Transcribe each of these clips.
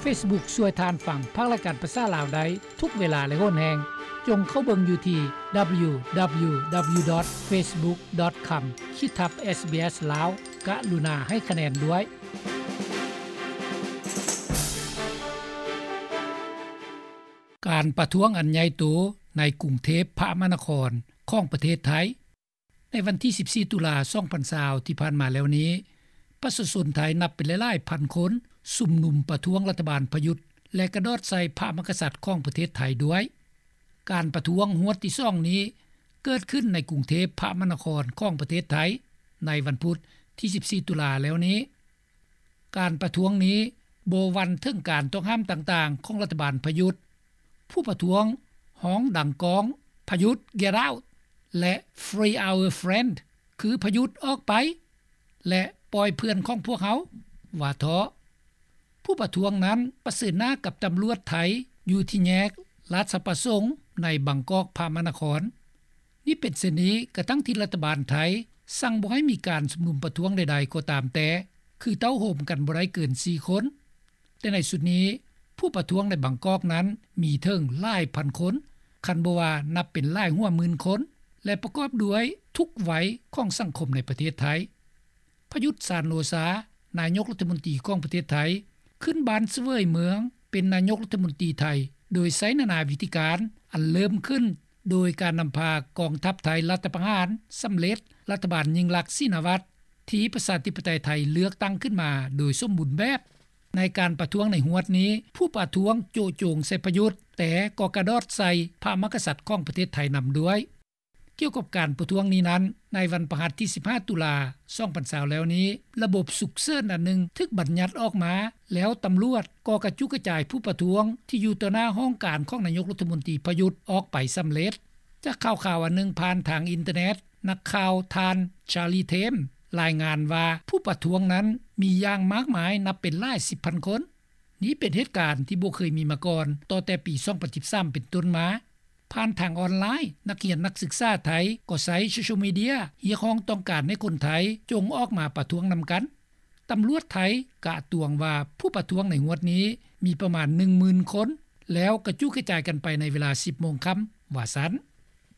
Facebook ຊ່ວຍທ່ານຟັງພາກລາຍການພາສາລາວໄດ້ທຸກເວລາ ແລະ ໂຫນແຮງ. ຈົ່ງເຂົ້າເບິ່ງຢູ່ທີ່ www.facebook.com/ SBS Lao. ກະລຸນາໃຫ້ຄະແນນດ້ວຍ. ການປະທ້ວງອັນໃຫຍ່ໂຕໃນກຸງເທບພະມະນະຄອນຂອງປະເທດໄທ. ໃນວັນທີສິບສີ່ ຕຸລາ ສອງພັນຊາວ ທີ່ຜ່ານມາແລ້ວນີ້, ປະຊາຊົນໄທນັບເປັນຫຼາຍໆພັນຄົນຊຸມນຸມປະທ້ວງລັດຖະບານປະຍຸດ ແລະ ກະດອດໃສ່ພະມະຫາກະສັດຂອງປະເທດໄທດ້ວຍ. ການປະທ້ວງຫວດທີສອງນີ້ເກີດຂຶ້ນໃນກຸງເທບພະມະນະຄອນຂອງປະເທດໄທ ໃນວັນພຸດທີສິບສີ່ ຕຸລາແລ້ວນີ້. ການປະທ້ວງນີ້ບໍ່ຫວັ່ນເຖິງການຕ້ອງຫ້າມຕ່າງໆຂອງລັດຖະບານປະຍຸດ. ຜູ້ປະທ້ວງຮ້ອງດັງກ້ອງ, ປະຍຸດ Get out ແລະ Free our friend ຄືປະຍຸດອອກໄປ ແລະ ປ່ອຍເພື່ອນຂອງພວກເຮົາ ວ່າເທາະ. ຜູ້ປະທ້ວງນັ້ນປະເຊີນໜ້າກັບຕຳຫຼວດໄທຢູ່ທີ່ແຍກລາຊະປະສົງໃນບາງກອກພະມະນະຄອນ. ນີ້ເປັນເຊັ່ນນີ້ກະທັ່ງທີ່ລັດຖະບານໄທສັ່ງບໍ່ໃຫ້ມີການຊຸມນຸມປະທ້ວງໃດໆກໍຕາມແຕ່ ຄືເຕົ້າໂຮມກັນບໍ່ໄດ້ເກີນສີ່ຄົນ. ແຕ່ໃນຊຸດນີ້ ຜູ້ປະທ້ວງໃນບາງກອກນັ້ນມີເຖິງຫຼາຍພັນຄົນ, ຄັນບໍ່ວ່ານັບເປັນຫຼາຍຫົວໝື່ນຄົນ ແລະ ປະກອບດ້ວຍທຸກໄວຂອງສັງຄົມໃນປະເທດໄທ. ປະຍຸດ ຊານໂອຊາ, ນາຍົກລັດຖະມົນຕີຂອງປະເທດໄທ, ຂຶ້ນບ້ານສະເຫວີຍເມືອງເປັນນາຍົກລັດຖະມົນຕີໄທ ໂດຍໃຊ້ນານາວິທີການ ອັນເລີ່ມຂຶ້ນໂດຍການນຳພາກອງທັບໄທລັດຖະປະຫານສຳເລັດ, ລັດຖະບານຍິ່ງລັກ ຊີນາວັດ ທີ່ປະຊາທິປະໄຕໄທເລືອກຕັ້ງຂຶ້ນມາໂດຍສົມບູນແບບ. ໃນການປະທ້ວງໃນຫວດນີ້, ຜູ້ປະທ້ວງໂຈະໂຈງໃສ່ປະຍຸດ, ແຕ່ກໍກະດອດໃສ່ພະມະຫາກະສັດຂອງປະເທດໄທນຳດ້ວຍ. ກ່ຽວກັບການປະທ້ວງນີ້ນັ້ນ, ໃນວັນພະຫັດທີສິບຫ້າ ຕຸລາ ສອງພັນຊາວ ແລ້ວນີ້, ລະບົບສຸກເສີນອັນໜຶ່ງຖືກບັນຍັດອອກມາ, ແລ້ວຕຳຫຼວດກໍກະຈຸກະຈາຍຜູ້ປະທ້ວງທີ່ຢູ່ຕໍ່ໜ້າຫ້ອງການຂອງນາຍົກລັດຖະມົນຕີປະຍຸດອອກໄປສຳເລັດ. ຈາກຂ່າວຄາວອັນໜຶ່ງຜ່ານທາງອິນເຕີເນັດ, ນັກຂ່າວທ່ານ Charlie Thames ລາຍງານວ່າ ຜູ້ປະທ້ວງນັ້ນມີຢ່າງມາກມາຍນັບເປັນຫຼາຍສິບພັນຄົນ. ນີ້ເປັນເຫດການທີ່ບໍ່ເຄີຍມີມາກ່ອນ ຕໍ່ແຕ່ປີສອງພັນສິບສາມເປັນຕົ້ນມາ. ຜ່ານທາງອອນລາຍ, ນັກຮຽນນັກສຶກສາໄທກໍໃຊ້ໂຊຊຽວມີເດຍຮຽກຮ້ອງຕ້ອງການໃຫ້ຄົນໄທຈົ່ງອອກມາປະທ້ວງນຳກັນ. ຕຳຫຼວດໄທກະຕວງວ່າຜູ້ປະທ້ວງໃນຫວດນີ້ມີປະມານໜຶ່ງໝື່ນຄົນ ແລ້ວກະຈຸກະຈາຍກັນໄປໃນເວລາສິບໂມງຄ່ຳ ວ່າຊັ້ນ.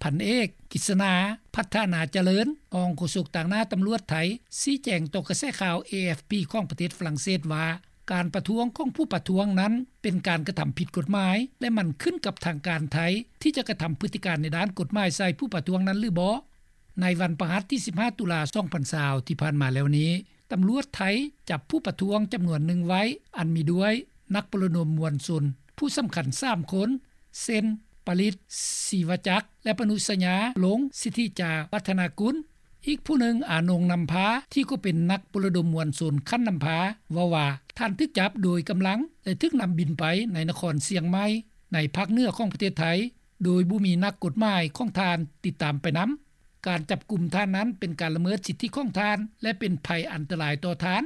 ພັນເອກ ກິດສະໜາ ພັດທະນາຈະເລີນ, ຮອງໂຄສົກຕາງໜ້າຕຳຫຼວດໄທ ຊີ້ແຈງຕໍ່ກະແສຂ່າວ ເອ ເອັຟ ພີ ຂອງປະເທດຝຣັ່ງເສດວ່າ ການປະທ້ວງຂອງຜູ້ປະທ້ວງນັ້ນເປັນການກະທຳຜິດກົດໝາຍ ແລະ ມັນຂຶ້ນກັບທາງການໄທທີ່ຈະກະທຳພຶດຕິການໃນດ້ານກົດໝາຍໃສ່ຜູ້ປະທ້ວງນັ້ນຫຼືບໍ່. ໃນວັນພະຫັດທີສິບຫ້າ ຕຸລາ ສອງພັນຊາວ ທີ່ຜ່ານມາແລ້ວນີ້, ຕຳຫຼວດໄທຈັບຜູ້ປະທ້ວງຈຳນວນໜຶ່ງໄວ້ ອັນມີດ້ວຍນັກປະລະດົມມວນຊົນຜູ້ສຳຄັນສາມຄົນ ເຊັ່ນ ປະລິດ ສີວະຈັກ ແລະ ປະນຸສະຍາ ລົງ ສິດທິຈາວັດທະນາກຸນ. ອີກຜູ້ໜຶ່ງ ອານົງ ນຳພາ ທີ່ກໍເປັນນັກປະລະດົມມວນຊົນຂັ້ນນຳພາ ເວົ້າວ່າ ທ່ານຖືກຈັບໂດຍກຳລັງ ແລະ ຖືກນຳບິນໄປໃນນະຄອນຊຽງໃໝ່ ໃນພາກເໜືອຂອງປະເທດໄທ ໂດຍບໍ່ມີນັກກົດໝາຍຂອງທ່ານຕິດຕາມໄປນຳ. ການຈັບກຸມທ່ານນັ້ນເປັນການລະເມີດສິດທິຂອງທ່ານ ແລະ ເປັນໄພອັນຕະລາຍຕໍ່ທ່ານ.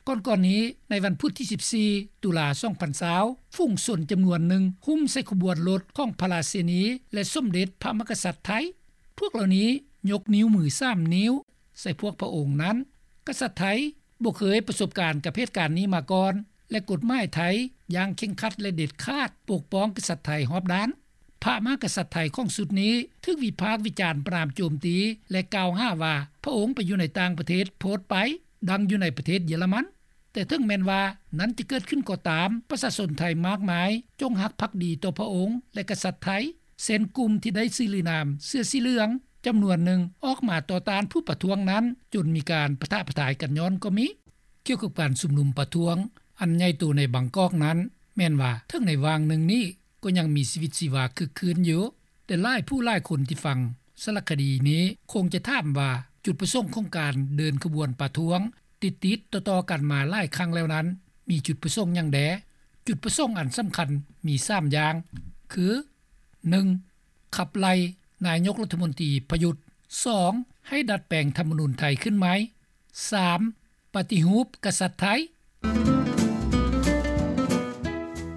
ກ່ອນໆນີ້, ໃນວັນພຸດທີສິບສີ່ ຕຸລາ ສອງພັນຊາວ ຝູງຊົນຈຳນວນໜຶ່ງຫຸ້ມໃສ່ຂະບວນລົດຂອງພະລາຊິນີ ແລະ ສົມເດັດພະມະຫາກະສັດໄທ. ພວກເຫຼົ່ານີ້ຍົກນິ້ວມືສາມນິ້ວໃສ່ພວກພະອົງນັ້ນ. ກະສັດໄທບໍ່ເຄີຍປະສົບການກັບເຫດການນີ້ມາກ່ອນ ແລະ ກົດໝາຍໄທຢ່າງເຄັ່ງຄັດ ແລະ ເດັດຂາດ ປົກປ້ອງກະສັດໄທຮອບດ້ານ. ພະມະຫາກະສັດໄທຂອງຊຸດນີ້ຖືກວິພາກວິຈານປະນາມໂຈມຕີ ແລະ ກ່າວຫາວ່າພະອົງໄປຢູ່ໃນຕ່າງປະເທດໂພດໄປ, ດັ່ງຢູ່ໃນປະເທດເຢຍລະມັນ. ແຕ່ເຖິງແມ່ນວ່ານັ້ນຈະເກີດຂຶ້ນກໍຕາມ, ປະຊາຊົນໄທມາກມາຍຈົງຮັກພັກດີຕໍ່ພະອົງ ແລະ ກະສັດໄທ, ເຊັ່ນ ກຸ່ມທີ່ໄດ້ຊື່ລະນາມເສື້ອສີເຫຼືອງຈຳນວນໜຶ່ງອອກມາຕໍ່ຕ້ານຜູ້ປະທ້ວງນັ້ນ ຈົນມີການປະທະປະທາຍກັນຍ້ອນກໍມີ. ກ່ຽວກັບການຊຸມນຸມປະທ້ວງອັນໃຫຍ່ໂຕໃນບາງກອກນັ້ນ, ແມ່ນວ່າເຖິງໃນຫວ່າງໜຶ່ງນີ້ກໍຍັງມີຊີວິດຊີວາຄຶກຄື້ນຢູ່, ແຕ່ຫຼາຍຜູ້ຫຼາຍຄົນທີ່ຟັງສາລະຄະດີນີ້ຄົງຈະຖາມວ່າ ຈຸດປະສົງຂອງການເດີນຂະບວນປະທ້ວງຕິດໆຕໍ່ໆກັນມາຫຼາຍຄັ້ງແລ້ວນັ້ນ ມີຈຸດປະສົງຫຍັງແດ່? ຈຸດປະສົງອັນສຳຄັນມີສາມຢ່າງ ຄື ໜຶ່ງ ຂັບໄລ່ນາຍົກລັດຖະມົນຕີປະຍຸດ, ສອງ ໃຫ້ດັດແປງທຳມະນູນໄທຂຶ້ນໃໝ່, ສາມ ປະຕິຮູບກະສັດໄທ.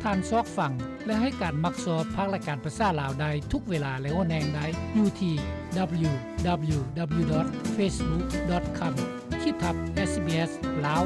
ທ່ານຊອກຟັງ ແລະ ໃຫ້ການມັກຊອບພາກລາຍການພາສາລາວໄດ້ທຸກເວລາ ແລະ ໂຫນແຮງໄດ້ຢູ່ທີ່ www.facebook.com/ SBS Lao.